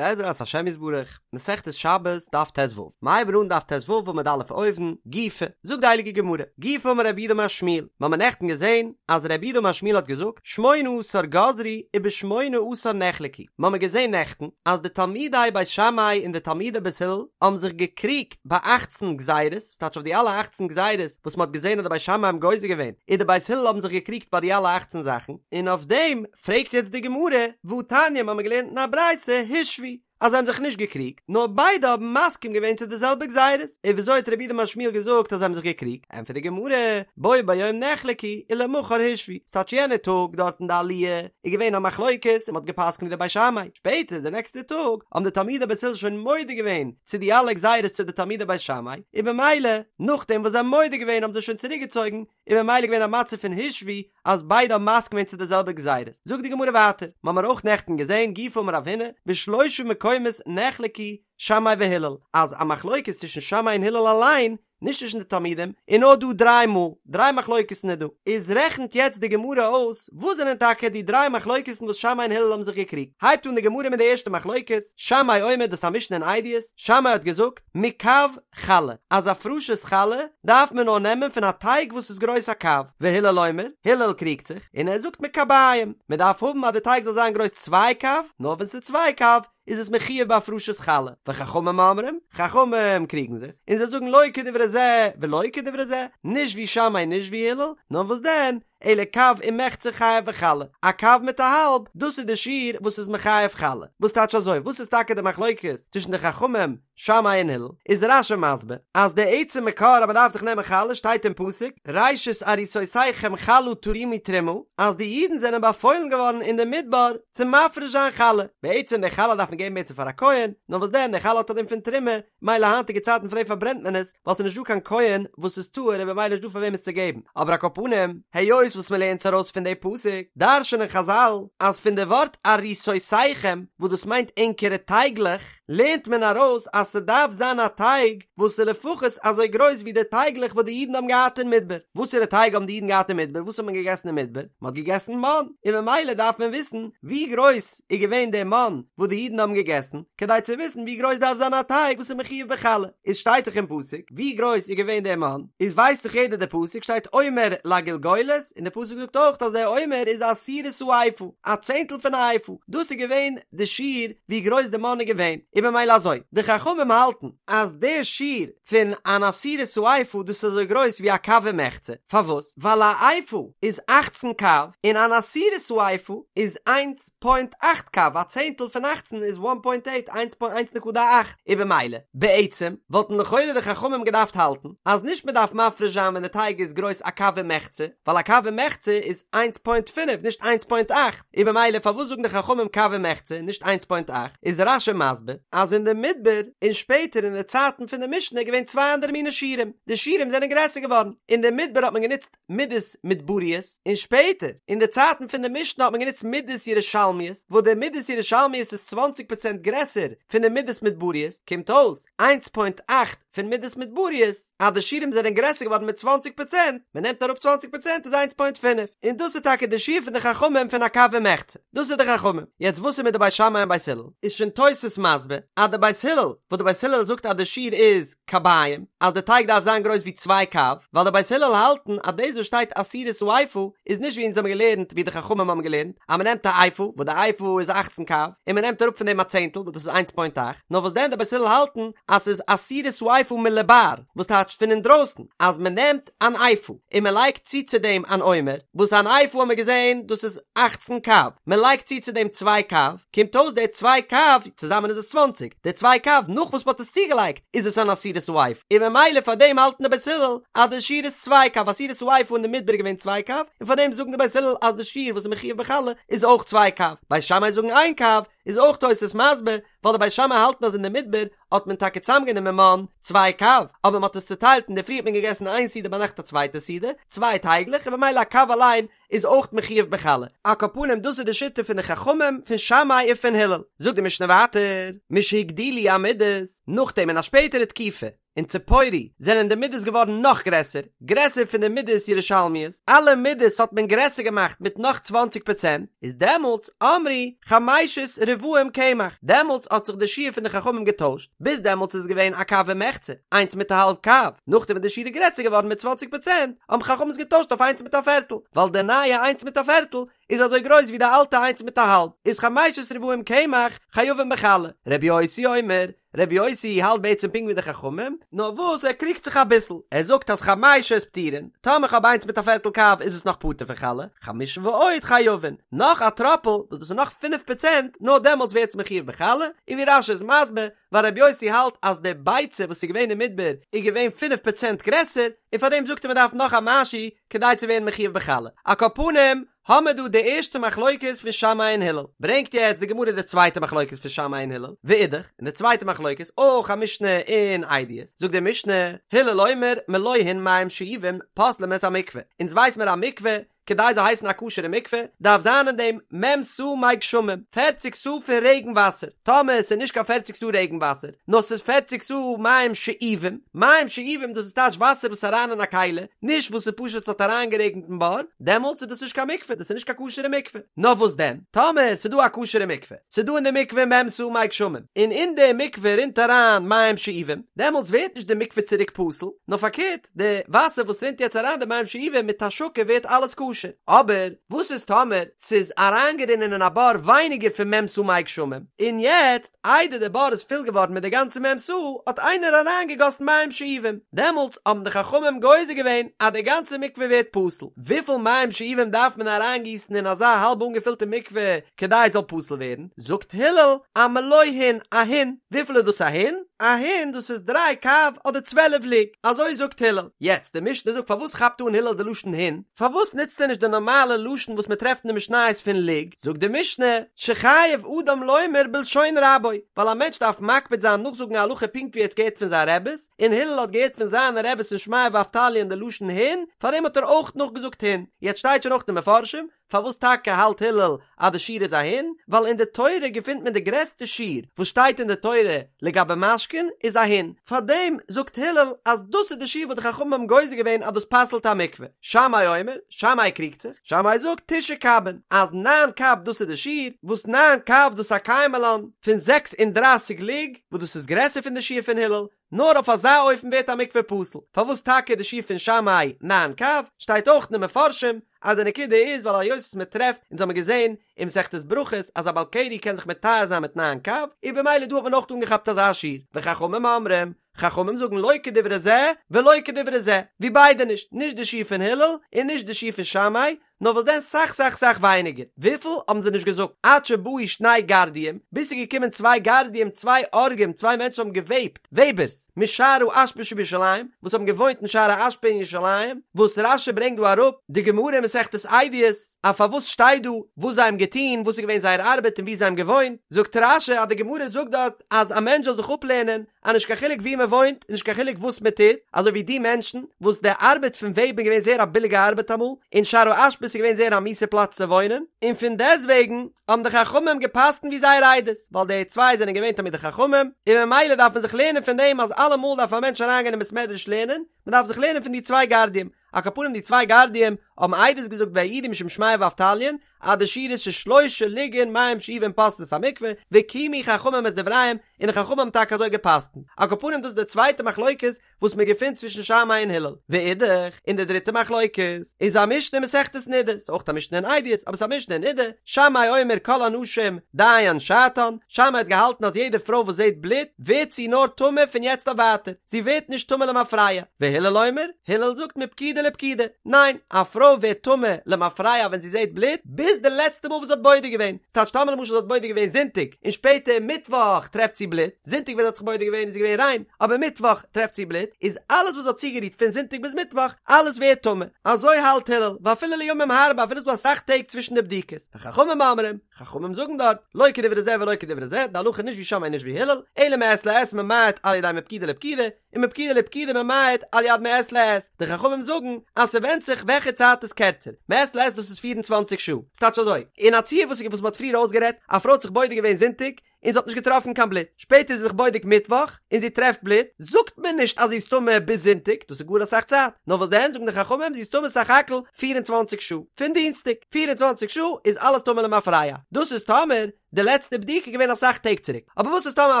בעזרת השם יתברך, מסכת שבת, דף ט"ו, מ'הייבט אן דף ט"ו עמוד א' אויבן, גופא, זאגט די הייליגע גמרא, גופא אמר רב יהודה אמר שמואל, מ'האמיר נעכטן געזען אז רב יהודה אמר שמואל האט געזאגט, שמונה עשר גזרו ובשמונה עשר נחלקו, מ'האמיר געזען נעכטן אז די תלמידי בית שמאי און די תלמידי בית הלל האבן זיך געקריגט ביי אכצן גזירות, ס'טייטש אויף די אלע אכצן גזירות וואס מ'האט געזען אז די בית שמאי האבן גוזר געווען, און די בית הלל האבן זיך געקריגט ביי די אלע אכצן זאכן, און אויף דעם פרעגט יעצט די גמרא, והתניא מ'האמיר געלערנט אין א ברייתא, הושוו, אז זיי האבן זיך נישט געקריגט, נאר ביידע האבן מסכים געווען צו די זעלבע גזירות, און וויאזוי האט רב יהודה אמר שמואל געזאגט אז זיי האבן זיך געקריגט? ענטפערט די גמרא, בו ביום נחלקו ולמחר הושוו, ס'טייטש יענע טאג דארט אין די עליה איז געווען א מחלוקת און מ'האט גע'פסק'נט ווי די בית שמאי, שפעטער די נעקסטע טאג האבן די תלמידי בית הלל שוין מודה געווען צו די אלע גזירות צו די תלמידי בית שמאי, און במילא נאכדעם וואס זיי האבן מודה געווען האבן זיי שוין צוריקגעצויגן, און במילא געווען א מצב פון הושוו אז ביידע האבן מסכים געווען צו די זעלבע גזירות. זאגט די גמרא ווייטער, מ'האמיר אויך נעכטן געזען גופא אמר רב הונא, בשלושה מקומות נחלקו שמאי והלל, אז א מחלוקת צווישן שמאי און הלל אליין, נישט צווישן די תלמידים, איז נאר דא דריי מאל, דריי מחלוקת'ן איז דא. איז רעכנט יעצט די גמרא אויס וואס זענען טאקע די דריי מחלוקת'ן וואס שמאי און הלל האבן זיך געקריגט. הייבט אן די גמרא מיט די ערשטע מחלוקת, שמאי אומר דאס א משנה אין עדיות, שמאי האט געזאגט, מקב חלה, אז הפרשת חלה דארף מען נאר נעמען פון א טייג וואס איז גרויס א קב, והלל אומר, הלל קריגט זיך, און ער זאגט מקביים, מען דארף האבן אז די טייג זאל זיין גרויס צוויי קב, נאר ווען ס'איז צוויי קב איז עס מחויב בהפרשת חלה, וחכמים אומרים, חכמים קריגן זיך, און זיי זאגן לא כדברי זה ולא כדברי זה, נישט ווי שמאי נישט ווי הלל, נאר וואס דען, אלא קב ומחצה חייב בחלה, א קב מיט א האלב, דאס איז די שיעור וואס איז מחייב חלה. וואס טייטש אזוי? וואס איז טאקע די מחלוקת צווישן די חכמים שמאי און הלל? איז רש"י מסביר אז די עצם מקור אז מען דארף דאך נעמען חלה שטייט אין פסוק ראשית עריסותיכם חלה תרימו תרומה אז די אידן זענען באפוילן געווארן אין די מדבר צו מפריש זיין חלה, בעצם די חלה דארף מען געבן בעצם פאר א כהן, נאר וואס דען די חלה האט א דין פון תרומה, מילא היינטיגע צייטן פאר דעם פארברענט מען עס, ווייל ס'איז נישט דא קיין כהן וואס איז טהור און במילא נישט דא פאר וועם עס צו געבן, אבער על כל פנים, היות וואס מען לערנט עס ארויס פון די פסוק, דרש'נען חז"ל אז פון די ווארט עריסותיכם וואס דאס מיינט ענקערע טייגלעך, לערנט מען ארויס אז ס'דארף זיין א טייג וואס איז לפחות אזוי גרויס ווי די טייגלעך וואס די אידן האבן געהאט אין מדבר. וואסערע טייג האבן די אידן געהאט אין מדבר? וואס האט מען געגעסן אין מדבר? מען האט געגעסן מן, און ממילא דארף מען וויסן ווי גרויס איז געווען דער מן וואס די אידן האבן געגעסן, כדי צו וויסן ווי גרויס דארף זיין א טייג וואס איז מחויב בחלה, איז שטייט דאך אין פסוק ווי גרויס איז געווען דער מן, איז ווייסט דאך יעדער די פסוק שטייט עומר לגלגולת, און די פסוק זאגט אויך אז דער עומר איז עשירית האיפה, א צענטל פון א איפה, דאס איז געווען די שיעור ווי גרויס די מן איז געווען, און במילא אזוי, די חכמים האלטן אז דער שיעור פון אן עשירית האיפה דאס איז אזוי גרויס ווי א קב ומחצה, פארוואס? ווייל א איפה איז אכצן קב, און אן עשירית האיפה איז איינס פוינט אכט קב, א צענטל פון אכצן איז וואן פוינט עיט, איינס פוינט איינס נקודה אכט, און במילא, בעצם, וואלטן לכאורה די חכמים געדארפט האלטן, אז נישט מען דארף מפריש זיין ווען די טייג איז גרויס א קב ומחצה, ווייל א קב ומחצה איז איינס פוינט פינף נישט איינס פוינט אכט, און במילא פארוואס זאגן די חכמים קב ומחצה און נישט איינס פוינט אכט, איז רש"י מסביר אז אין די מדבר און שפעטער אין די צייטן פון די משנה איז געווען צוויי אנדערע מיני שיעורים, די שיעורים זענען גרעסער געווארן, אין די מדבר האט מען גענוצט מידות מדבריות, און שפעטער אין די צייטן פון די משנה האט מען גענוצט מידות ירושלמיות, וואס די מידות ירושלמיות איז צוואנציג פראצענט גרעסער פון די מידות מדבריות, קומט אויס איינס פוינט אכט פון מידות מדבריות, אז די שיעורים זענען גרעסער געווארן מיט צוואנציג פראצענט, מען נעמט אראפ צוואנציג פראצענט איז איינס פוינט פינף, און דאס איז טאקע די שיעור פון די חכמים פון א קב ומחצה, דאס איז די חכמים, יעצט וואס איז מיט די בית שמאי און בית הלל, איז שוין תוס' מסביר אז די בית הלל, וואס די בית הלל זאגט אז די שיעור איז קביים, אז די טייג דארף זיין גרויס ווי צוויי קב, ווייל די בית הלל האלטן אז דאס וואס שטייט עשירית האיפה איז נישט ווי אונז האבן געלערנט ווי די חכמים האבן געלערנט אז מען נעמט א איפה וואס די איפה איז אכצן קב און מען נעמט אראפ פון דעם א צענטל וואס דאס איז איינס פוינט אכט, נאר וואס דען די בית הלל האלטן אז ס'איז עשירית האיפה מלבר, וואס טייטשט פון אינדרויסן, אז מען נעמט אן איפה און מען לייגט צו צו דעם אן עומר, וואס אן איפה האבן מיר געזען דאס איז אכצן קב, מען לייגט צו צו דעם צוויי קב, קומט אויס די צוויי קב, צוזאמען איז עס צוואנציג, די צוויי קב נאך וואס מען האט עס צוגעלייגט איז עס אן עשירית האיפה, און ממילא פאר דעם האלטן די בית הלל אז די שיעור איז צוויי קב, עשירית האיפה אין די מדבר איז געווען צוויי קב, און פאר דעם זאגן די בית הלל אז די שיעור וואס איז מחויב בחלה איז אויך צוויי קב, בית שמאי זאגן איין קב, איז אויך תוס' מסביר, ווייל די בית שמאי האלטן אז אין די מדבר האט מען טאקע צוזאמגענומען מן צוויי קב, אבער מען האט עס צוטיילט אינדערפרי האט מען געגעסן איין סעודה ביינאכט א צווייטע סעודה, צוויי טייגלעך און במילא א קב אליין איז אויך מחויב בחלה. על כל פנים דאס איז די שיטה פון די חכמים פון שמאי און פון הלל. זאגט די משנה ווייטער, משהגדילו המידות, נאכדעם אין א שפעטערע תקופה. אין ציפורי זענען די מידות געווארן נאך גרעסער, גרעסער פון די מידות ירושלמיות, אלע מידות האט מען גרעסער געמאכט מיט נאך צוואנציג פראצענט, איז דעמאלטס אמרו חמשת רבעים קמח, דעמאלטס האט זיך די שיעור פון די חכמים געטוישט, ביז דעמאלטס איז געווען א קב ומחצה, איינס מיט א האלב קב, נאכדעם ווען די שיעור איז גרעסער געווארן מיט צוואנציג פראצענט, האבן חכמים עס געטוישט אויף איינס מיט א פערטל, ווייל די נייע איינס מיט א פערטל איז אזוי גרויס ווי די אלטע איינס מיט א האלב, איז חמשת רבעים קמח חייבים בחלה, רבי יוסי אומר, רבי יוסי האלט בעצם פונקט ווי די חכמים, נאר וואס ער קריגט זיך אביסל, ער זאגט אז חמשת פטורין, טאמער כ'האב איינס מיט א פערטל קב איז עס נאך פטור פון חלה, חמשה ועוד חייבין, נאך א טראפל, וואס דאס איז נאך פינף פראצענט, נאר דעמאלטס ווערט עס מחויב בחלה, און ווי רש"י איז מסביר, ווייל רבי יוסי האלט אז די ביצה וואס איז געווען אין מדבר איז געווען פינף פראצענט גרעסער, און פארדעם זאגט ער מען דארף נאך א משהו כדי צו ווערן מחויב בחלה. על כל פנים, האמער דא די ערשטע מחלוקת פון שמאי און הלל. ברענגט יעצט די גמרא די צווייטע מחלוקת פון שמאי און הלל, ואידך, און די צווייטע מחלוקת, אויך א משנה אין עדיות, זאגט די משנה, הלל אומר מלא הין מים שאובים פוסלים את המקווה, אונז ווייס מיר א מקווה, כדי זאל הייסן א כשר'ע מקווה, דארף זיין אין דעם מ' סאה מי גשמים, פערציג סאה פון רעגן וואסער, טאמער עס איז נישט קיין פערציג סאה רעגן וואסער, נאר ס'איז פערציג סאה מים שאובים, מים שאובים דאס איז טייטש וואסער וואס איז אריין אין א כלי, נישט וואס איז פשוט ס'האט אריינגערעגנט אין בור, דעמאלטס איז דאס נישט קיין מקווה, דאס איז נישט קיין כשר'ע מקווה. נאר וואס דען, טאמער ס'איז דא א כשר'ע מקווה, ס'איז דא אין די מקווה מ' סאה מי גשמים, און אין די מקווה רינט אריין מים שאובים, דעמאלטס ווערט נישט די מקווה צוריק פסול, נאר פארקערט, די וואסער וואס רינט יעצט אריין די מים שאובים מיט השקה ווערט אלעס כשר. אבער וואס איז טאמער ס'איז אריינגערינען אין א בור ווייניגער פון מ' סאה מי גשמים, און יעצט איידער די בור איז פול געווארן מיט די גאנצע מ' סאה האט איינער אריינגעגאסן מים שאובים, דעמאלטס האבן די חכמים גוזר געווען אז די גאנצע מקווה ווערט פסול. וויפיל מים שאובים דארף מען אריינגיסן אין אזא האלב אנגעפילטע מקווה כדי עס זאל פסול ווערן? זאגט הלל א מלא הין, א הין. וויפיל איז דאס א הין? א הין דאס איז דריי קב אדער צוועלף לוג, אזוי זאגט הלל. יעצט די משנה זאגט פארוואס כאפט אן הלל די לשון הין? פארוואס נוצט ער נישט די נארמאלע לשון וואס מען טרעפט אין די משניות פון לוג? זאגט די משנה, שחייב אדם לומר בלשון רבו, ווייל א מענטש דארף מקפיד זיין נאכזאגן א הלכה פונקט ווי ער האט עס געהערט פון זיין רעבעס, און הלל האט געהערט פון זיינע רעבעס פון שמעיה ואבטליון די לשון הין, פארדעם האט ער אויך נאכגעזאגט הין. יעצט שטייט שוין אויך אין די מפרשים, פארוואס טאקע האלט הלל אז די שיעור איז א הין? ווייל אין די תורה געפינט מען די גרעסטע שיעור וואס שטייט אין די תורה לגבי משקין איז א הין, פארדעם זאגט הלל אז דאס איז די שיעור וואס די חכמים האבן גוזר געווען אז דאס פסל'ט א מקווה. שמאי אומר, שמאי קריגט זיך, שמאי זאגט תשעה קבין, אז ניין קב דאס איז די שיעור, וואס ניין קב דאס איז א קיימא לן פון 36 לוג, וואס דאס איז גרעסער פון די שיעור פון הלל, נאר אויף אזא אופן ווערט א מקווה פסול. פארוואס טאקע די שיעור פון שמאי ניין קב? שטייט אויך אין די מפרשים אז די נקודה איז ווייל היות וואס מען טרעפט, אונז האמיר געזען אין מסכת ברכות אז א בעל קרי קען זיך מטהר זיין מיט ניין קב, איז במילא דא האט מען אויך אנגעכאפט אזא שיעור. וחכמים אומרים, חכמים זאגן לא כדברי זה ולא כדברי זה, ווי ביידע נישט, נישט די שיעור פון הלל און נישט די שיעור פון שמאי, נאר וואס דען סאך סאך סאך ווייניגער, וויפיל האבן זיי נישט געזאגט, עד שבאו שני גרדיים, ביז ס'איז געקומען צוויי גרדיים צוויי אורגים צוויי מענטשן האבן געוועבט, וועבערס, משער האשפה שבירושלים, וואס האבן געוואוינט אין שער האשפה אין ירושלים, וואס רש"י ברענגט דא אראפ, די גמרא אין מסכת עדיות, אז פארוואס שטייט דא וואס זיי האבן געטון, וואס איז געווען זייער ארבעט און וואו זיי האבן געוואוינט, זאגט רש"י אז די גמרא זאגט דארט אז א מענטש זאל זיך אפלערנען אז נישט קיין חילוק וואו מען וואוינט און נישט קיין חילוק וואס מען טוט, אזוי ווי די מענטשן וואס די ארבעט פון וועבן איז געווען זייער א ביליגע ארבעט אמאל, און שער האשפה איז געווען זייער א מיסע פלאץ צו וואוינען, און פון דעסטוועגן האבן די חכמים גע'פסק'נט ווי זייער עדות, ווייל די צוויי זענען געווען תלמידי חכמים, און ממילא דארף מען זיך לערנען פון דעם אז אלעמאל דארף א מענטש אריינגיין אין בית מדרש לערנען, מען דארף זיך לערנען פון די צוויי גרדיים, על כל פנים די צוויי גרדיים האבן עדות געזאגט והעידו משום שמעיה ואבטליון אז די שיעור איז ששלושה לוגין מים שאובין פוסלין את המקווה וקיימו חכמים את דבריהם און די חכמים האבן טאקע אזוי געפסקנט על כל פנים דאס איז די צווייטע מחלוקת וואס מען געפינט צווישן שמאי און הלל ואידך און די דריטע מחלוקת איז א משנה אין מסכת נדה ס'איז אויך א משנה אין עדיות אבער ס'איז א משנה אין נדה שמאי אומר כל הנשים דיין שעתן שמאי האט געהאלטן אז יעדע פרוי וואס זעט בלוט ווערט זי נאר טמא פון יעצט אויף ווייטער זי ווערט נישט טמא למפרע, והלל אומר, הלל זאגט מפקידה לפקידה, ניין, א פרוי ווערט טמא למפרע ווען זי זעט בלוט, ביז די לעצטע מאל וואס זי האט בודק געווען, ס'טייטש טאמער למשל זי האט בודק געווען זונטאג, און שפעטער מיטוואך טרעפט זי בלוט, זונטאג ווען זי האט זיך בודק געווען איז זי געווען ריין, אבער מיטוואך טרעפט זי בלוט, איז אלעס וואס זי האט צוגערירט פון זונטאג ביז מיטוואך, אלעס ווערט טמא, אזוי האלט הלל, ואפילו לימים הרבה אפילו ס'איז דא אסאך טעג צווישן די בדיקות, וחכמים אומרים, חכמים זאגן דארט, לא כדברי זה ולא כדברי זה, די הלכה איז נישט ווי שמאי נישט ווי הלל, אלא מעת לעת ממעט על ידי מפקידה לפקידה, און מפקידה לפקידה ממעט על יד מעת לעת, די חכמים זאגן אז ס'ווענדט זיך וועלכע צייט איז קערצער, מעת לעת דאס איז פיר און צוואנציג שעה, ס'טייטש אזוי, אין א ציור וואס וואס מ'האט פריער אויסגערעדט, א פרוי האט זיך בודק געווען זונטאג, און זי האט נישט געטראפן קיין בלוט, שפעטער איז זי זיך בודק מיטוואך און זי טרעפט בלוט, זאגט מען נישט אז זי איז טמא ביז זונטאג, דאס איז גאר אסאך צייט, נאר וואס דען זאגן די חכמים זי איז טמא סך הכל 24 שעה, פון דינסטאג, 24 שעה איז אלעס טמא למפרע, דאס איז טאמער די לעצטע בדיקה איז געווען אסאך טעג צוריק, אבער וואס איז טאמער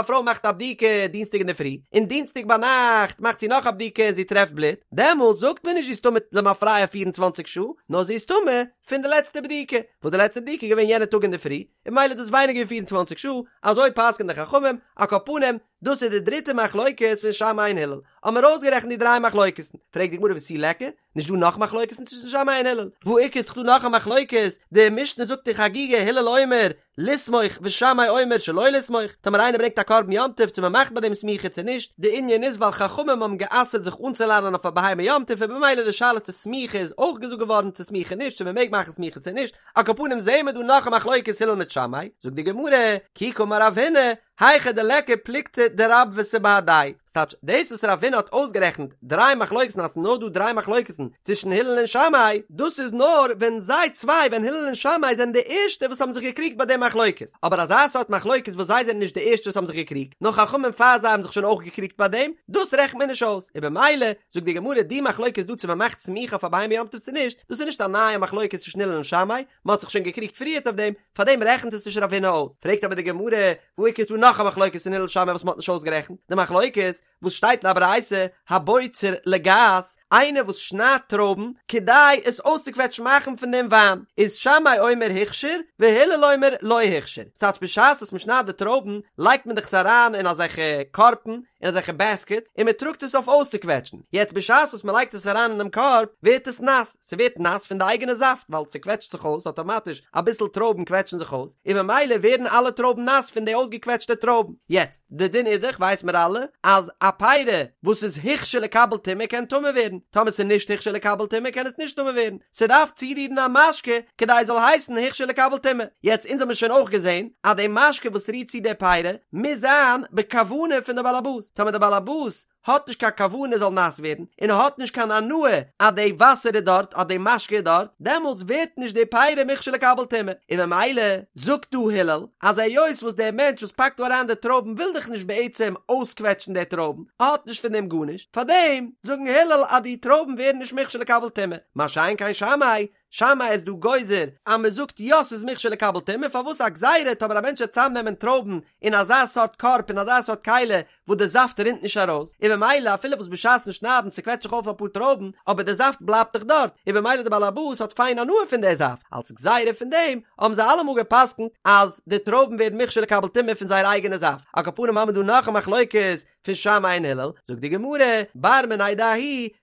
א פרוי מאכט א בדיקה דינסטאג אינדערפרי, און דינסטאג ביינאכט מאכט זי נאך א בדיקה און זי טרעפט בלוט, דעמאלטס זאגט מען נישט זי איז טמא למפרע 24 שעה, נאר זי איז טמא פון די לעצטע בדיקה, וואס די לעצטע בדיקה איז געווען יענע טאג אינדערפרי, און ממילא איז דאס ווייניגער ווי 24 שעה, אזוי פסק'ענען די חכמים, על כל פנים, דאס איז די דריטע מחלוקת פון שמאי און הלל, האבן מיר אויסגערעכנט די דריי מחלוקת'ן, פרעגט די גמרא ותו ליכא, נישט דא נאך מחלוקת'ן צווישן שמאי און הלל, והא איכא איז דאך דא נאך א מחלוקת, די משנה זאגט אין חגיגה הלל אומר לסמוך ושמאי אומר שלא לסמוך, טאמער איינער ברענגט א קרבן יום טוב צו מען מאכט ביי דעם סמיכה צו נישט, די ענין איז ווייל חכמים האבן גע'אסר'ט זיך אנצולאנען אויף א בהמה יום טוב און במילא די שאלה צו סמיכה איז אויך געזאגט געווארן צו סמיכה נישט צו מען מעג מאכן סמיכה צו נישט, על כל פנים זעהן מיר דא נאך א מחלוקת הלל מיט שמאי, זאגט די גמרא, כי קאמר רב הונא, היכא דליכא פלוגתא דרבוותא בהדייהו, ס'טייטש, דאס וואס רב הונא האט אויסגערעכנט דריי מחלוקת'ן אז ס'איז נאר דא דריי מחלוקת'ן צווישן הלל און שמאי, דאס איז נאר ווען זיי צוויי ווען הלל און שמאי זענען די ערשטע וואס האבן זיך געקריגט ביי די מחלוקת, אבער אזא סארט מחלוקת וואס זיי זענען נישט די ערשטע וואס האבן זיך געקריגט, נאר חכמים פאר זיי האבן זיך שוין אויך געקריגט ביי דעם, דאס רעכנט מען נישט אויס, און במילא זאגט די גמרא די מחלוקת דא צו מען מאכט סמיכה אויף א בהמה יום טוב צו נישט, דאס איז נישט א נייע מחלוקת צווישן הלל און שמאי, מען האט זיך שוין געקריגט פריערט אויף דעם, פארדעם רעכנט עס נישט רב הונא אויס. פרעגט אבער די גמרא, והא איכא איז דא נאך א מחלוקת אין הלל שמאי וואס מען האט נישט אויסגערעכנט, די מחלוקת וואס שטייט אין א ברייתא, הבוצר לגת, איינער וואס שניידט טרויבן כדי עס אויסצוקוועטשן מאכן פון דעם וויין, איז שמאי אומר הוכשר והלל אומר לא הוכשר, ס'טייטש בשעת וואס מען שניידט די טרויבן לייגט מען דאך עס אריין אין אזעלכע קארבן, אין אזעלכע בעסקעטס, און מען טראגט עס אויף אויסצוקוועטשן, יעצט בשעת וואס מען לייגט עס אריין אינעם קארב ווערט עס נאס, ס'ווערט נאס פון די אייגענע זאפט ווייל ס'קוועטשט זיך אויס אטאמאטיש, אביסל טרויבן קוועטשן זיך אויס, און ממילא ווערן אלע טרויבן נאס פון די אויסגעקוועטשטע טרויבן. יעצט, די דין איז דאך, ווייס מיר אלע, אז א פירה וואס איז הוכשר לקבל טומאה קען טמא ווערן, טאמער ס'איז נישט הוכשר לקבל טומאה קען עס נישט טמא ווערן, ס'דארף צורירן א משקה כדי עס זאל הייסן הוכשר לקבל טומאה. יעצט, אונז האמיר שוין אויך געזען אז די משקה וואס רירט צו די פירה מוז זיין בכוונה פון די בעל הבית, טאמער די בעל הבית האט נישט קיין כוונה זאל נאס ווערן, און האט נישט קיין הנאה אז די וואסער איז דארט, אז די משקה איז דארט, דעמאלטס ווערט נישט די פירה מוכשר לקבל טומאה, און ממילא זאגט דא הלל, אז היות וואס דער מענטש וואס פאקט דא אריין די טרויבן וויל דאך נישט בעצם אויסקוועטשן די טרויבן, ער האט נישט פון דעם גארנישט, פארדעם זאגן הלל אז די טרויבן ווערן נישט מוכשר לקבל טומאה, מה שאין כן שמאי, שמאי איז דא גוזר אז מען זאגט יא ס'איז מוכשר לקבל טומאה, פארוואס א גזירה טאמער א מענטש וועט צאמנעמען טרויבן אין אזא סארט קארב אין אזא סארט כלי וואס די זאפט רינט נישט ארויס, און במילא אפילו וואס בשעת'ן שניידן ס'קוועטשט זיך אויף אפאר טרויבן אבער די זאפט בלייבט דאך דארט, און במילא די בעל הבית האט פיין הנאה פון די זאפט, אלס גזירה פון דעם האבן זיי אלעמאל גע'פסק'נט אז די טרויבן ווערן מוכשר לקבל טומאה פון זייער אייגענע זאפט, על כל פנים האבן מיר דא נאך א מחלוקת פון שמאי און הלל, זאגט די גמרא, בר מיניה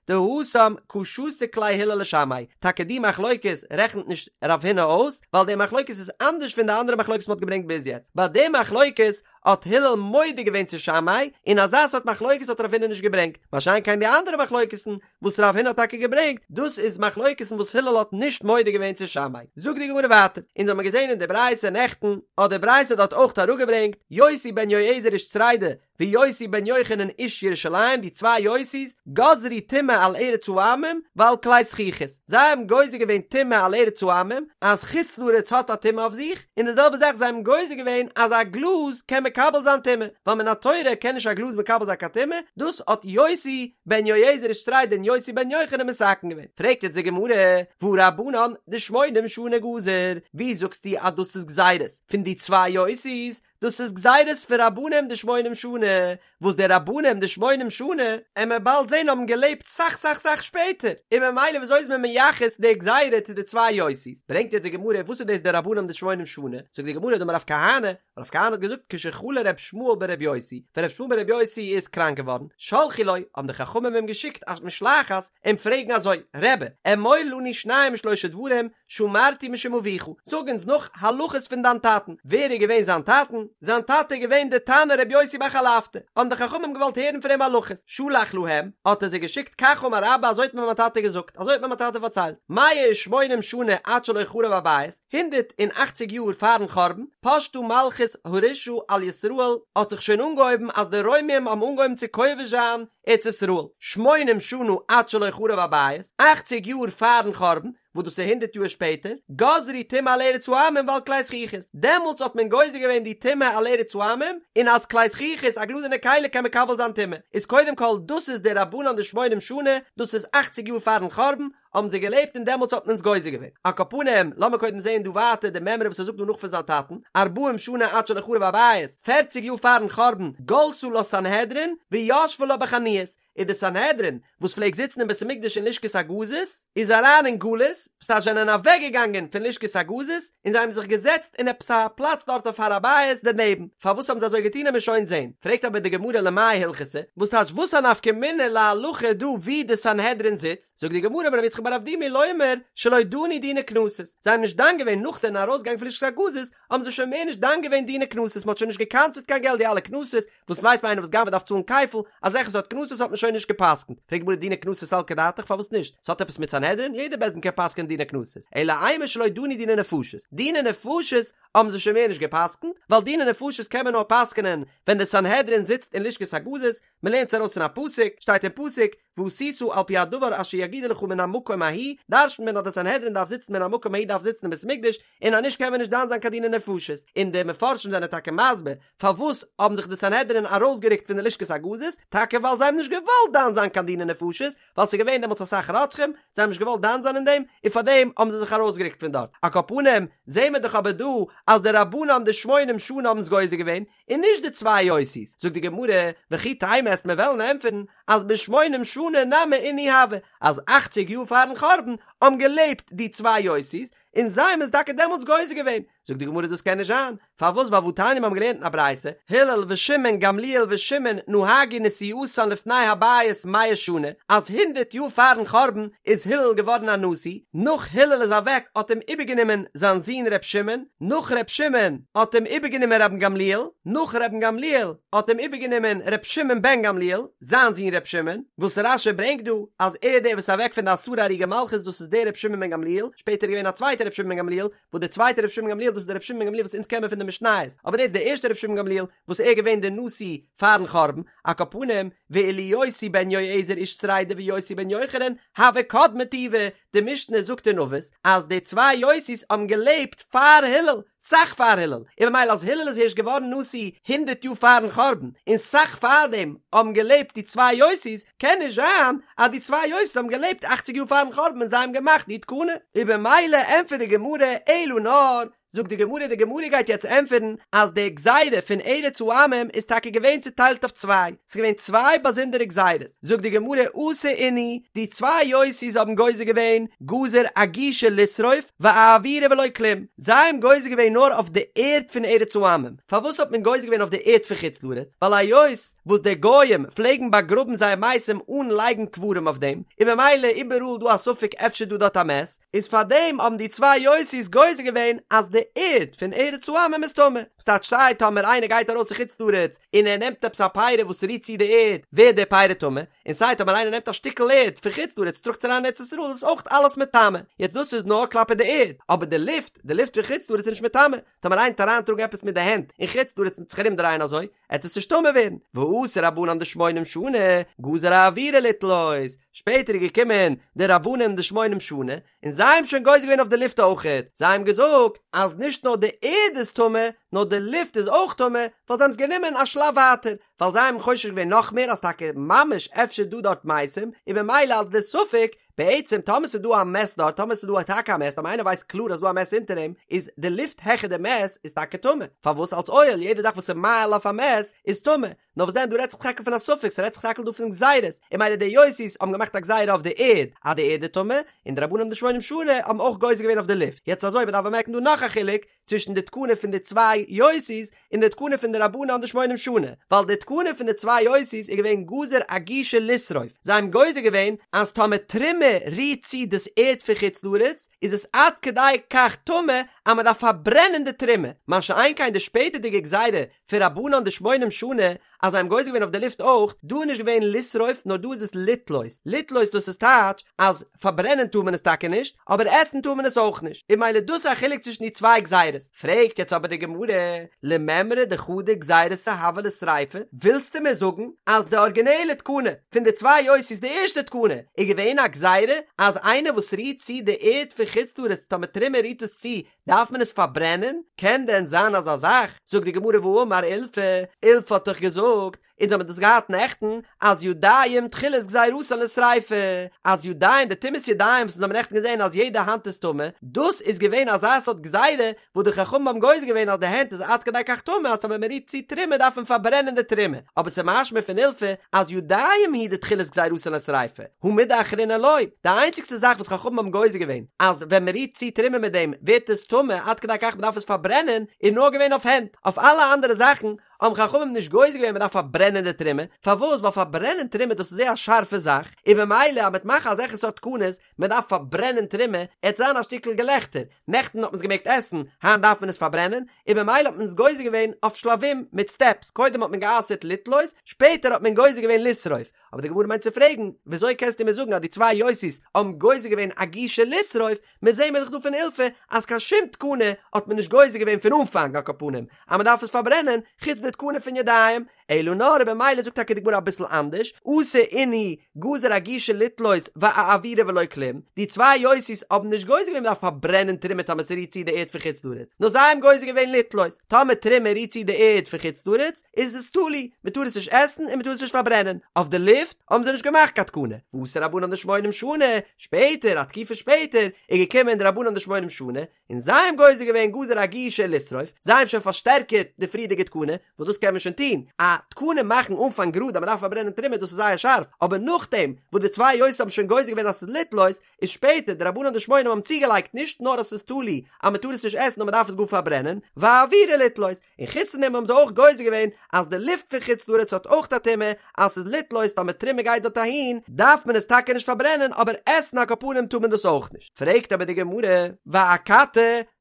דההוא דהתם קא שתיק ליה הלל לשמאי, טאקע די מחלוקת רעכנט נישט רב הונא אויס, ווייל די מחלוקת איז אנדערש פון די אנדערע מחלוקת מ'האט געברענגט ביז יעצט, ביי די מחלוקת האט הלל מודה געווען צו שמאי, און אזא סארט מחלוקת האט רב הונא נישט געברענגט, מה שאין כן די אנדערע מחלוקת'ן וואס רב הונא האט טאקע געברענגט, דאס איז מחלוקת'ן וואס הלל האט נישט מודה געווען צו שמאי. זאגט די גמרא ווייטער, אונז האמיר געזען אין די ברייתא נעכטן, האט די ברייתא דארט אויך אראפגעברענגט, יוסי בן יועזר איש צרידה, ויוסי בן יוחנן איש ירושלים, די צוויי יוסי'ס, גזרו טומאה על ארץ העמים ועל כלי זכוכית, זיי האבן גוזר געווען טומאה על ארץ העמים, אז חוץ לארץ האט א טומאה אויף זיך, און די זעלבע זאך זיי האבן גוזר געווען אז א גלאז קען מקבל זיין טומאה, ווייל מן התורה קען נישט א גלאז מקבל זיין קיין טומאה, דאס האט יוסי בן יועזר איש צרידה און יוסי בן יוחנן מתקן געווען. פרעגט יעצט די גמרא, והא רבנן דשמונים שנה גזור, ווי זאגסטו אז דאס איז גזירות פון די צוויי יוסי'ס, דאס איז גזירות פון רבנים דשמונים שנה, וואס די רבנים דשמונים שנה, עמיר באלד זעהן האבן געלעבט סאך סאך סאך שפעטער, און ממילא וויאזוי איז מען מייחס די גזירה צו די צוויי יוסי'ס? ברענגט יעצט די גמרא וואס איז דאס די רבנים דשמונים שנה, זאגט די גמרא דאמר רב כהנא, רב כהנא האט געזאגט כשחלה ר' ישמעאל בר' יוסי, ווען ר' ישמעאל בר' יוסי איז קראנק געווארן, שלחו לו, האבן די חכמים אים געשיקט א משלחת אים פרעגן אזוי, רבי, אמור לנו שניים ושלושה דברים, שאמרתי משום אביך, זאג אונז נאך הלכות פון דיין טאטן, ווער איז געווען זיין טאטן? זיין טאטע איז געווען די תנא רבי יוסי בר חלפתא, האבן די חכמים געוואלט הערן פון אים הלכות, שלח להם, האט ער זיי געשיקט כך אמר אבא אזוי האט מיר מיין טאטע געזאגט, אזוי האט מיר מיין טאטע פארציילט, מאה ושמונים שנה עד שלא חרב הבית, הונדערט און אכציג יאר פארן חורבן, פשטה מלכות הרשעה על ישראל, האט זיך שוין אנגעהויבן אז די רוימים האבן אנגעהויבן צו כובש זיין ארץ ישראל, שמונים שנה עד שלא חרב הבית, אכציג יאר פארן חורבן, וואס דאס איז הונדרעט יאר שפעטער, גזרו טומאה על ארץ העמים ועל כלי זכוכית, דעמאלטס האט מען גוזר געווען די טומאה על ארץ העמים, און אז כלי זכוכית א גלאזערנע כלי קען מקבל זיין טומאה, איז קודם כל דאס איז די רבנן דשמונים שנה, דאס איז אכציג יאר פארן חורבן, האבן זיי געלעבט און דעמאלטס האט מען עס גוזר געווען. על כל פנים, לאמיר קודם זעהן דא ווייטער די מימרא וואס ער זאגט דא נאך פון זיין טאטן, ארבעים שנה עד שלא חרב הבית, פערציג יאר פארן חורבן, גלתה לה סנהדרין, וישבה לה בחנויות, איז די סנהדרין, וואס פלעגט זיצן אין בית המקדש אין לשכת הגזית, איז אריין אין גלות, ס'טייטש זיי זענען אוועק געגאנגען פון לשכת הגזית, און זיי האבן זיך געזעצט אין עפעס א פלאץ דארט אויף הר הבית דערנעבן, פארוואס האבן זיי אזוי געטון עמיר שוין זען, פרעגט אבער די גמרא למאי הלכתא, וואס טייטש וואס א נפקא מינה להלכה דא ווי די סנהדרין זיצט, זאגט די גמרא אמר רב יצחק בר אבדימי לומר שלא דנו דיני קנסות, זיי האבן נישט דן געווען נאך זיי זענען ארויסגעגאנגען פון לשכת הגזית האבן זיי שוין מער נישט דן געווען דיני קנסות, מען האט שוין נישט געקנס'עט קיין געלט די אלע קנסות, וואס ווייסט מען איינער וואס גנב'עט דארף צאלן כפל, אזעלכע סארט קנסות האט מען שוין נישט גע'פסק'נט, פרעגט די גמרא דיני קנסות סלקא דעתך פארוואס נישט, ס'האט עפעס מיט סנהדרין? יעדער בית דין קען פסק'ענען דיני קנסות, אלא אימא שלא דנו דיני נפשות, דיני נפשות האבן זיי שוין מער נישט גע'פסק'נט, ווייל דיני נפשות קען מען נאר פסק'ענען ווען די סנהדרין זיצט אין לשכת הגזית, מען לערנט עס ארויס פון א פסוק, שטייט אין פסוק, ועשית על פי הדבר אשר יגידו לך מן המקום ההוא, דרש'נט מען אז די סנהדרין דארף זיצן מן המקום ההוא דארף זיצן אין בית מקדש, און אז נישט קען מען נישט דן זיין קיין דיני נפשות, און די מפרשים זענען טאקע מסביר פארוואס האבן זיך די סנהדרין ארויסגערוקט פון די לשכת הגזית, טאקע ווייל זיי האבן נישט געוואלט דן זיין קיין דיני נפשות, ווייל ס'איז געווען דעמאלטס אסאך רוצחים, זיי האבן נישט געוואלט דן זיין אין דעם, און פארדעם האבן זיי זיך ארויסגערוקט פון דארט. על כל פנים, זעהן מיר דאך אבער דא אז די רבנן דשמונים שנה האבן עס גוזר געווען, און נישט די צוויי יוסי'ס, זאגט די גמרא, וכי תימא עסט מיר וועלן ענטפערן אז בשמונים שנה נמי אינהו הוו, אז אכציג יאר פארן חורבן האבן געלעבט די צוויי יוסי'ס, און זיי האבן עס טאקע דעמאלטס גוזר געווען, זאגט די גמרא דאס קען נישט זיין, פארוואס ווייל והתניא מיר האבן געלערנט אין א ברייתא, הלל ושמעון גמליאל ושמעון נהגו נשיאותן לפני הבית מאה שנה, אז הונדערט יאר פארן חורבן איז הלל געווארן א נשיא, נאך הלל איז אוועק האט אים איבערגענומען זיין זון ר' שמעון, נאך ר' שמעון האט אים איבערגענומען רבן גמליאל, נאך רבן גמליאל האט אים איבערגענומען ר' שמעון בן גמליאל, זיין זון ר' שמעון, וואס רש"י ברענגט דא אז ער דער וואס איז אוועק פון די עשרה הרוגי מלכות דאס איז דער ר' שמעון בן גמליאל, שפעטער איז געווען א צווייטער ר' שמעון בן גמליאל, וואס דער צווייטער ר' שמעון בן גמליאל דאס איז דער ר' שמעון בן גמליאל וואס אונז קען מיר פון די משניות, אבער דאס איז דער ערשטער ר' שמעון בן גמליאל וואס ער איז געווען דער נשיא פארן חורבן, על כל פנים, ואילו יוסי בן יועזר איש צרידה ויוסי בן יוחנן, הוו קדמי טובא, די משנה זאגט אין אבות אז די צוויי יוסי'ס האבן געלעבט פאר הלל, סאך פאר הלל, און ממילא אז הלל איז הערשט געווארן נשיא הונדערט יאר פארן חורבן, און סאך פארדעם האבן געלעבט די צוויי יוסי'ס, קען נישט זיין אז די צוויי יוסי'ס האבן געלעבט אכציג יאר פארן חורבן און זיי האבן געמאכט די תקנה. און במילא ענטפערט די גמרא אלא נאר, זאגט די גמרא, די גמרא גייט יעצט ענטפערן אז די גזירה פון ארץ העמים איז טאקע געווען צוטיילט אויף צוויי, ס'איז געווען צוויי באזונדערע גזירות, זאגט די גמרא אתו אינהו, די צוויי יוסי'ס האבן גוזר געווען גזור אגושא לשרוף ואאוירא ולא כלום, זיי האבן גוזר געווען נאר אויף די ערד פון ארץ העמים, פארוואס האט מען גוזר געווען אויף די ערד פון חוץ לארץ, ווייל היות וואס די גוים פלעגן באגראבן זייער מתים אן לייגן קברים אויף דעם, און ממילא איבעראל דא א ספק אפשר דא דארט א מת, איז פאר דעם האבן די צוויי יוסי'ס גוזר געווען אז די ערד פון ארץ העמים איז טמא, ס'טייטש סיי טאמער איינער גייט ארויס אין חוץ לארץ און ער נעמט עפעס א פרי וואס רירט צו די ערד ווערט די פרי טמא, און סיי טאמער איינער נעמט א שטיקל ערד פון חוץ לארץ טראגט עס אריין אין ארץ ישראל איז עס אויך אלעס מטמא, יעצט דאס איז נאר כלפי די ערד, אבער די לופט, די לופט פון חוץ לארץ איז נישט מטמא, טאמער איינער וועט אריינטראגן עפעס מיט די הענט אין חוץ לארץ און זיך ארומדרייען אזוי, עט עס נישט טמא ווערן, ואתו רבנן דשמונים שנה, גזור אאוירא לתלות, שפעטער איז געקומען די רבנן דשמונים שנה, און זיי האבן שוין גוזר געווען אויף די לופט אויכעט, זיי האבן געזאגט אז נישט נאר די ערד איז טמא, נאר די לופט איז אויך טמא, ווייל זיי האבן עס גענומען א שלב ווייטער, ווייל זיי האבן חושש געווען נאך מער אז טאקע ממש אפשר דא דארט מתים, און ממילא אלס די ספק, בעצם טאמער ס'איז דא א מת דארט, טאמער ס'איז דא טאקע א מת, טאמער איינער ווייסט קלאר אז ס'דא א מת אונטער אים, איז די לופט העכער די מת איז טאקע טמא, פארוואס אלס אוהל, יעדע זאך וואס איז מאהיל אויף א מת איז טמא, נאר וואס דען דא רעדט זיך טאקע פון א ספק, ס'רעדט זיך טאקע דא פון גזירות, און ממילא די יוסי'ס האבן געמאכט א גזירה אויף די ערד אז די ערד איז טמא, און די רבנן דשמונים שנה האבן אויך גוזר געווען אויף די לופט, יעצט אזוי מ'דארף באמערקן דא נאך א חילוק, צווישן די תקנה פון די צוויי יוסי'ס און די תקנה פון די רבנן דשמונים שנה, ווייל די תקנה פון די צוויי יוסי'ס איז געווען גזור אגושא לשרוף, זיי האבן גוזר געווען אז טאמער תרומה רירט צו דאס ערד פון חוץ לארץ איז עס עד כדי כך טמא אז מען דארף פארברענען די תרומה, מה שאין כן די שפעטערדיגע גזירה פון רבנן דשמונים שנה. אז זיי האבן גוזר געווען אויף די לופט אויך, דא איז נישט געווען לשרוף נאר דא איז עס לתלות, לתלות דאס איז טייטש אז פארברענען טאר מען עס טאקע נישט, אבער עסן טאר מען עס אויך נישט, און ממילא דאס איז א חילוק צווישן די צוויי גזירות. פרעגט יעצט אבער די גמרא, למימרא דחדא גזירתא הוה לשריפה, ווילסטו מיר זאגן אז די ארגינעלע תקנה פון די צוויי יוסי'ס די ערשטע תקנה איז געווען א גזירה אז איינער וואס רירט צו די ערד פון חוץ לארץ טאמער תרומה רירט עס צו דארף מען עס פארברענען? קען דען זיין אזא זאך? זאגט די גמרא והאמר אילפא, אילפא האט דאך געזאגט, אונז האבן דאס געהאט נעכטן, אז ידיים תחילת גזירתן לשריפה, אז ידיים, די טומאת ידיים וואס אונז האבן נעכטן געזען אז יעדע האנט איז טמא, דאס איז געווען אזא סארט גזירה וואס די חכמים האבן גוזר געווען אז די הענט איז עד כדי כך טמא אז טאמער מען רירט צו תרומה דארף מען פארברענען די תרומה, אבער ס'איז משמע פון אילפא אז ידיים הוא דתחילת גזירתן לשריפה, הא מידי אחרינא לא, די איינציגסטע זאך וואס חכמים האבן גוזר געווען אז ווען מען רירט צו תרומה מיט דעם ווערט עס טמא עד כדי כך מען דארף עס פארברענען איז נאר געווען אויף הענט, אויף אלע אנדערע זאכן האבן חכמים נישט גוזר געווען מען דארף פארברענען די תרומה, פארוואס? ווייל פארברענען תרומה דאס איז זייער א שארפע זאך, און במילא אז מען וועט מאכן אזעלכע סארט תקנות, מען דארף פארברענען תרומה, עט זיין א שטיקל געלעכטער, נעכטן האט מען עס געמעגט עסן, היינט דארף מען עס פארברענען, און במילא האט מען עס גוזר געווען אויף שלבים, מיט סטעפס, קודם האט מען גע'אסר'ט לתלות, שפעטער האט מען גוזר געווען לשרוף, אבער די גמרא מיינט צו פרעגן, וויאזוי קענסטו מיר זאגן אז די צוויי יוסי'ס האבן גוזר געווען אגושי לשרוף, מיר זעהן מיר דאך דא פון אילפא אז קיין שום תקנה האט מען נישט גוזר געווען פון אנפאנג על כל פנים אז מען דארף עס פארברענען, חוץ די תקנה פון ידיים, אלא נאר במילא זאגט טאקע די גמרא אביסל אנדערש, אתו אינהו גזור אגושי לתלות ואאוירא ולא כלום, די צוויי יוסי'ס האבן נישט גוזר געווען מען דארף פארברענען תרומה טאמער ס'רירט צו די ערד פון חוץ לארץ, נאר זיי האבן גוזר געווען לתלות, טאמער תרומה רירט צו די ערד פון חוץ לארץ איז עס תלוי, מען טאר עס נישט עסן און מען טאר עס נישט פארברענען, אויף די לופט האבן זיי נישט געמאכט קיין תקנה, ואתו רבנן דשמונים שנה, שפעטער א תקופה שפעטער איז געקומען די רבנן דשמונים שנה און זיי האבן גוזר געווען גזור אגושי לשרוף, זיי האבן שוין פארשטערקערט די פריערדיגע תקנה, וואס דאס קען מען שוין טון, א תקנה מאכן אנפאנג גראד אז מען דארף פארברענען תרומה דאס איז זייער שארף, אבער נאכדעם וואס די צוויי יוסי'ס האבן שוין גוזר געווען אז ס'איז לתלות, איז שפעטער די רבנן דשמונים האבן צוגעלייגט נישט נאר אז ס'איז תלוי אז מען טאר עס נישט עסן נאר מען דארף עס גאר פארברענען, ואאוירא לתלות, און חוץ פון דעם האבן זיי אויך גוזר געווען אז די לופט פון חוץ לארץ האט אויך א טומאה, אז ס'איז לתלות טאמער תרומה גייט דארט אהין דארף מען עס טאקע נישט פארברענען אבער עסן על כל פנים טאר מען דאס אויך נישט. פרעגט אבער די גמרא, ואכתי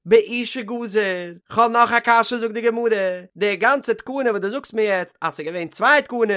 באושא גזור, כ'האב נאך א קשיא זאגט די גמרא, די גאנצע תקנה וואס דו זאגסט מיר יעצט אז ס'איז געווען צוויי תקנות,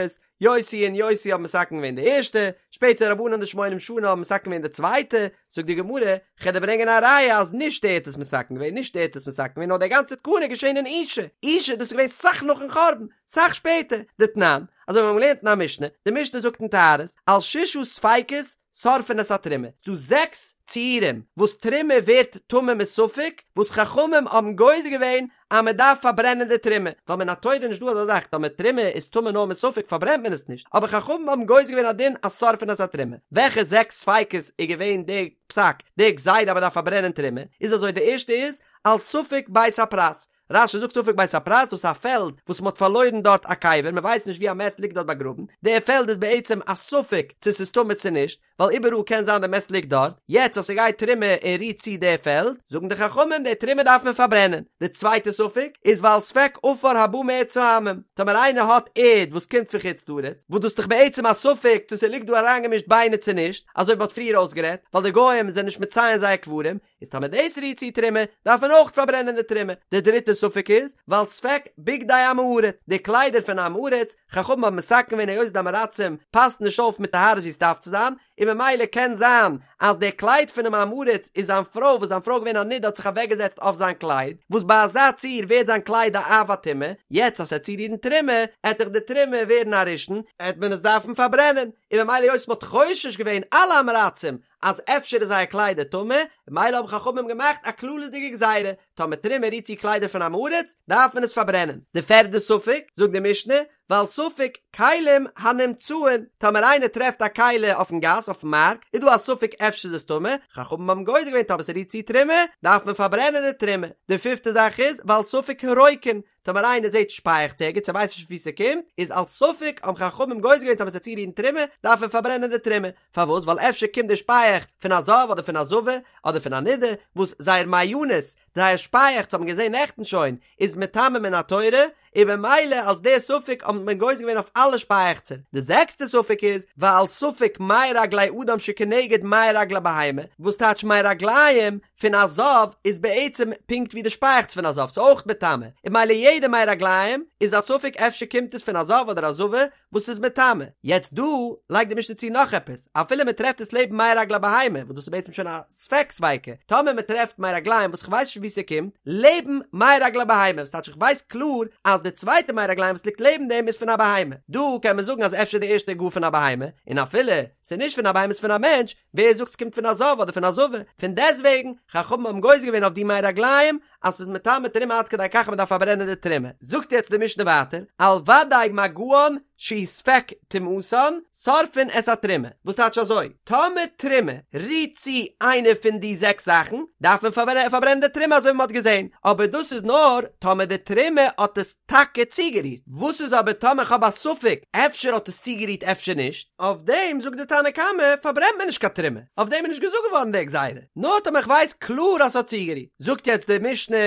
יוסי און יוסי האבן מתקן געווען די ערשטע, שפעטער רבנן דשמונים שנה האבן מתקן געווען די צווייטע, זאגט די גמרא, כ'על דיר ברענגען א ראיה אז נישט ער האט עס מתקן געווען, נישט ער האט עס מתקן געווען, נאר די גאנצע תקנה איז געשען אין אושא, אושא דאס איז געווען סאך נאכן חורבן, סאך שפעטער, דתנן, אזוי ווי מיר האבן געלערנט אין א משנה, די משנה זאגט אין טהרות, על ששה ספיקות שורפין את התרומה, ס'דא זעקס ציורים וואס תרומה ווערט טמא מספק, וואס חכמים האבן גוזר געווען אז מען דארף פארברענען די תרומה, ווייל מן התורה איז נישט דא אזא זאך, טאמער תרומה איז טמא נאר מספק פארברענט מען עס נישט, אבער חכמים האבן גוזר געווען א דין אז שורפין את התרומה. וועלכע זעקס ספיקות איז געווען די פסק, די גזירה אז מען דארף פארברענען תרומה, איז אזוי די ערשטע איז, על ספק בית הפרס, רש"י זאגט ספק בית הפרס דאס איז א פעלד וואס מען האט פארלוירן דארט א קבר, מען ווייסט נישט ווי א מת ליגט דארט באגראבן, די פעלד איז בעצם א ספק צו ס'איז טמא צו נישט, ווייל איבעראל קען זיין די מת ליגט דארט, יעצט אז ס'גייט תרומה און רירט צו די פעלד, זאגן די חכמים די תרומה דארף מען פארברענען. די צווייטע ספק איז ועל ספק עפר הבא מארץ העמים, טאמער איינער האט ערד וואס קומט פון חוץ לארץ, וואס דאס איז דאך בעצם א ספק צו ס'ליגט דא אריינגעמישט ביינער צו נישט, אזוי ווי מ'האט פריער אויסגערעדט, ווייל די גוים זענען נישט מציין זייער קברים, איז טאמער דאס רירט צו תרומה, דארף מען אויך פארברענען די תרומה. די דריטע ספק איז, ועל ספק בגדי עם הארץ, די קליידער פון עם הארץ, חכמים האבן מתקן געווען היות די עם הארצים פאסן נישט אויף מיט טהרות ווי עס דארף צו זיין, און ממילא קען זיין אז די קלייד פונעם עם הארץ איז זיין פרוי וואס זיין פרוי איז געווען א נידה האט זיך אוועקגעזעצט אויף זיין קלייד, וואס ביי אזא ציור ווערט זיין קלייד א אב הטומאה, יעצט אז ס'עט צורירן תרומה, עט דאך די תרומה ווערן א ראשון, עט מען עס דארפן פארברענען, און ממילא היות מ'האט חושש געווען אלע עם הארצים אז אפשר איז זייער קליידער טמא, ממילא האבן חכמים געמאכט א כללית'דיגע גזירה, טאמער תרומה רירט צו קליידער פון עם הארץ, דארף מען עס פארברענען. די פערדע ספק, זאגט די משנה, ועל ספק כלים הנמצאין, טאמער איינער טרעפט א כלי אויפן גאס, אויפן מארק, איז דא א ספק אפשר איז עס טמא, חכמים האבן גוזר געווען טאמער ס'רירט צו תרומה, דארף מען פארברענען די תרומה. די פיפטע זאך איז, ועל ספק הרוקין, טאמער איינער זעט שפייעכץ ערגעץ ער ווייסט נישט וואו ס'קומט, איז על ספק האבן חכמים גוזר געווען טאמער ס'עט צורירן תרומה, דארף מען פארברענען די תרומה. פארוואס? ווייל אפשר קומט די שפייעכץ פון א זב אדער פון א זבה אדער פון א נידה, וואס זייער מעיינות, זייער שפייעכץ האט מען געזען נעכטן שוין, איז מטמא מן התורה, און במילא אלס די ספק האט מען גוזר געווען אויף אלע שפייעכצער. די זעקסטע ספק איז, ועל ספק מי רגלי אדם שכנגד מי רגלי בהמה, וואס טייטש מי רגליים? פון א זב איז בעצם פונקט ווי די שפייעכץ פון א זב, ס'איז אויך מטמא, און ממילא יעדע מי רגליים איז א ספק אפשר קומט עס פון א זב אדער א זבה וואס איז מטמא. יעצט דא לייגט די משנה צו נאך עפעס, אפילו מען טרעפט עס לעבן מי רגלי בהמה, וואס דאס איז בעצם שוין א ספק ספיקא, טאמער מען טרעפט מי רגליים וואס כ'ווייס נישט וואו ס'קומט, לעבן מי רגלי בהמה, וואס טייטש איך ווייס קלאר אז די צווייטע מי רגליים וואס ליגט לעבן דעם איז פון א בהמה, דא קען מען זאגן אז אפשר די ערשטע איז גאר פון א בהמה, און אפילו ס'איז נישט פון א בהמה ס'איז פון א מענטש, ווער זאגט ס'קומט פון א זב אדער פון א זבה? פון דעסטוועגן, חכמים האבן גוזר געווען אויף די מי רגליים אז ס'איז מטמא תרומה עד כדי כך אז מ'דארף פארברענען די תרומה. זאגט יעצט די משנה ווייטער, על ודאי מגען שהוא ספק טומאתן, שורפין את התרומה. וואס טייטש אזוי? טאמער תרומה רירט צו איינע פון די זעקס זאכן, דארף מען פארברענען די תרומה אזוי ווי מ'האט געזען, אבער דאס איז נאר טאמער די תרומה האט עס טאקע צוגערירט. וואס איז אבער טאמער כ'האב א ספק אפשר האט עס צוגערירט אפשר נישט? אויף דעם זאגט די תנא קמא פארברענט מען נישט קיין תרומה, אויף דעם איז נישט געזאגט געווארן די גזירה, נאר טאמער כ'ווייס קלאר אז ס'האט צוגערירט. זאגט יעצט די משנה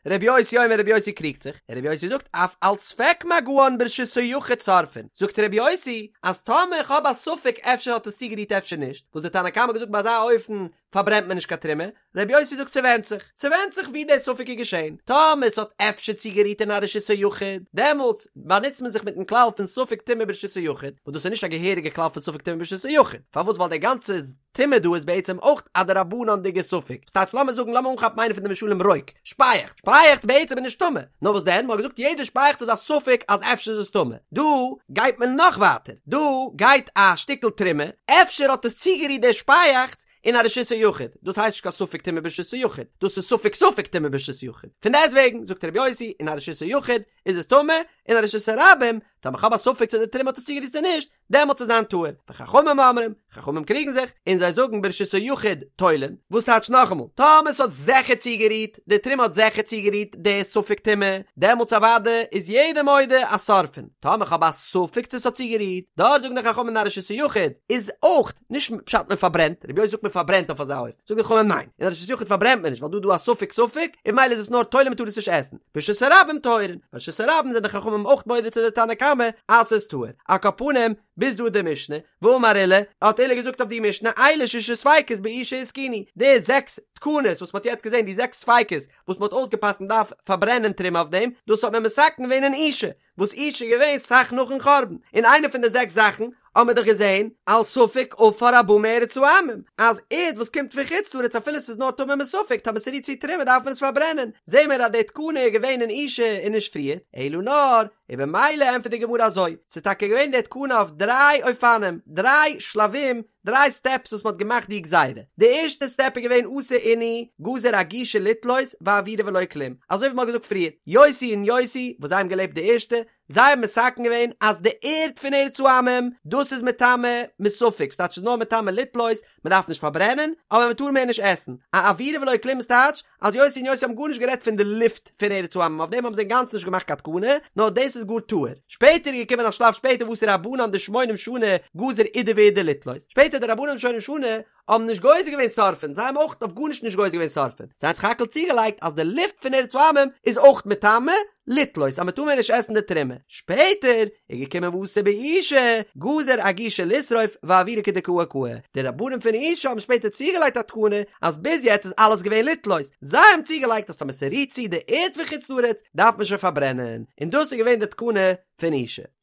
רבי יוסי אומר רבי יוסי קריגט זיך, און רבי יוסי זאגט אף על ספק מגען ברשות היחיד שורפין, זאגט רבי יוסי אז טאמער כ'האב א ספק אפשר האט עס צוגערירט אפשר נישט, וואס די תנא קמא האט געזאגט ביי אזא אופן פארברענט מען נישט קיין תרומה, רבי יוסי זאגט ס'ווענדט זיך, ס'ווענדט זיך ווי דער ספק איז געשען, טאמער ס'האט אפשר צוגערירט אין א רשות היחיד, דעמאלטס באנוצט מען זיך מיטן כלל פון ספק טומאה ברשות היחיד, וואס דאס איז נישט א געהעריגע כלל פון ספק טומאה ברשות היחיד, פארוואס ווייל דער גאנצע טומאה דא איז בעצם אויך א דרבנן'דיגע ספק, ס'טייטש לאמיר זאגן לאמיר אנכאפן איינע פון די משלים רוק, שפייעכץ, שפייעכץ בעצם איז נישט טמא, נאר וואס דען, מ'האט געזאגט יעדע שפייעכץ איז א ספק אז אפשר איז עס טמא, דא גייט מען נאך ווייטער, דא גייט א שטיקל תרומה, אפשר האט עס צוגערירט דער שפייעכץ, אין א רשות היחיד, דאס הייסט נישט קיין ספק טומאה ברשות היחיד, דאס איז ספק ספק טומאה ברשות היחיד, פון דעסטוועגן זאגט רבי יוסי אין א רשות היחיד איז עס טמא, אין א רשות הרבים, טאמער כ'האב א ספק צו די תרומה האט עס צוגערירט צו נישט, דעמאלטס וועט זיין טהור, וחכמים אומרים, חכמים קריגן זיך, און זיי זאגן ברשות היחיד תולין, וואס טייטש נאכאמאל, טאמער ס'האט זיכער צוגערירט, די תרומה האט זיכער צוגערירט די ספק טומאה, דעמאלטס אוודאי איז יעדער מודה אז שורפין, טאמער כ'האב א ספק צו ס'האט צוגערירט, דארט זאגן די חכמים אין א רשות היחיד איז אויך, נישט פשט מען פארברענט, רבי יוסי זאגט מען פארברענט אויף אזא אופן, זאגן די חכמים ניין, אין א רשות היחיד פארברענט מען נישט ווייל דא איז דא א ספק ספק, און ממילא איז עס נאר תולין מען טאר עס נישט עסן, ברשות הרבים טהורין, ברשות הרבים זענען די חכמים אויך מודה צו די תנא קמא אז ס'איז טהור, על כל פנים, ביז דא די משנה, ואמר עולא, האט עולא געזאגט אויף די משנה, אלו ששה ספיקות באושא התקינו, די זעקס תקנות וואס מ'האט יעצט געזען, די זעקס ספיקות וואס מ'האט אויסגעפסקנט מ'דארף פארברענען תרומה אויף דעם, דאס האט מען מתקן געווען אין אושא, וואס אושא איז געווען סאך נאכן חורבן, און איינע פון די זעקס זאכן האבן מיר דאך געזען, על ספק עפר הבא מארץ העמים, אז ערד וואס קומט פון חוץ לארץ אפילו ס'איז נאר טמא מספק טאמער ס'רירט צו תרומה דארף מען עס פארברענען, זעהן מיר אז די תקנה איז געווען אין אושא און נישט פריער, אלא נאר, און במילא ענטפערט די גמרא אזוי, ס'איז טאקע געווען די תקנה אויף דריי אופנים, דריי שלבים, דריי סטעפס וואס מ'האט געמאכט די גזירה, די ערשטע סטעפ איז געווען אתו אינהו גזור אגושא לתלות ואאוירא ולא כלום, אזוי ווי מ'האט געזאגט פריער, יוסי און יוסי וואס זיי האבן געלעבט די ערשטע, זיי האבן מתקן געווען אז די ערד פון ארץ העמים, דאס איז מטמא מספק, ס'טייטש ס'איז נאר מטמא לתלות, מ'דארף נישט פארברענען, אבער מ'טאר מער נישט עסן, אאוירא ולא כלום איז טייטש אז יוסי און יוסי האבן גארנישט גערעדט פון די לופט פון ארץ העמים, אויף דעם האבן זיי אינגאנצן נישט געמאכט קיין תקנה, נאר דאס איז גאר טהור. שפעטער איז געקומען א שלב שפעטער ואתו רבנן דשמונים שנה גזור אידי ואידי לתלות, שפעטער די רבנן שמונים שנה האבן נישט גוזר געווען שורפין, זיי האבן אויך אויף גארנישט נישט גוזר געווען שורפין, זיי האבן סך הכל צוגעלייגט אז די לופט פון ארץ העמים איז אויך מטמא, לתלות אז מען טאר מער נישט עסן די תרומה, שפעטער איז געקומען ואתו באושא גזור אגושא לשרוף ואאוירא כדקאי קאי, די רבנים פון אושא האבן שפעטער צוגעלייגט א תקנה אז ביז יעצט איז אלעס געווען לתלות, זיי האבן צוגעלייגט אז טאמער ס'רירט צו די ערד פון חוץ לארץ דארף מען שוין פארברענען, און דאס איז געווען די תקנה פון אושא.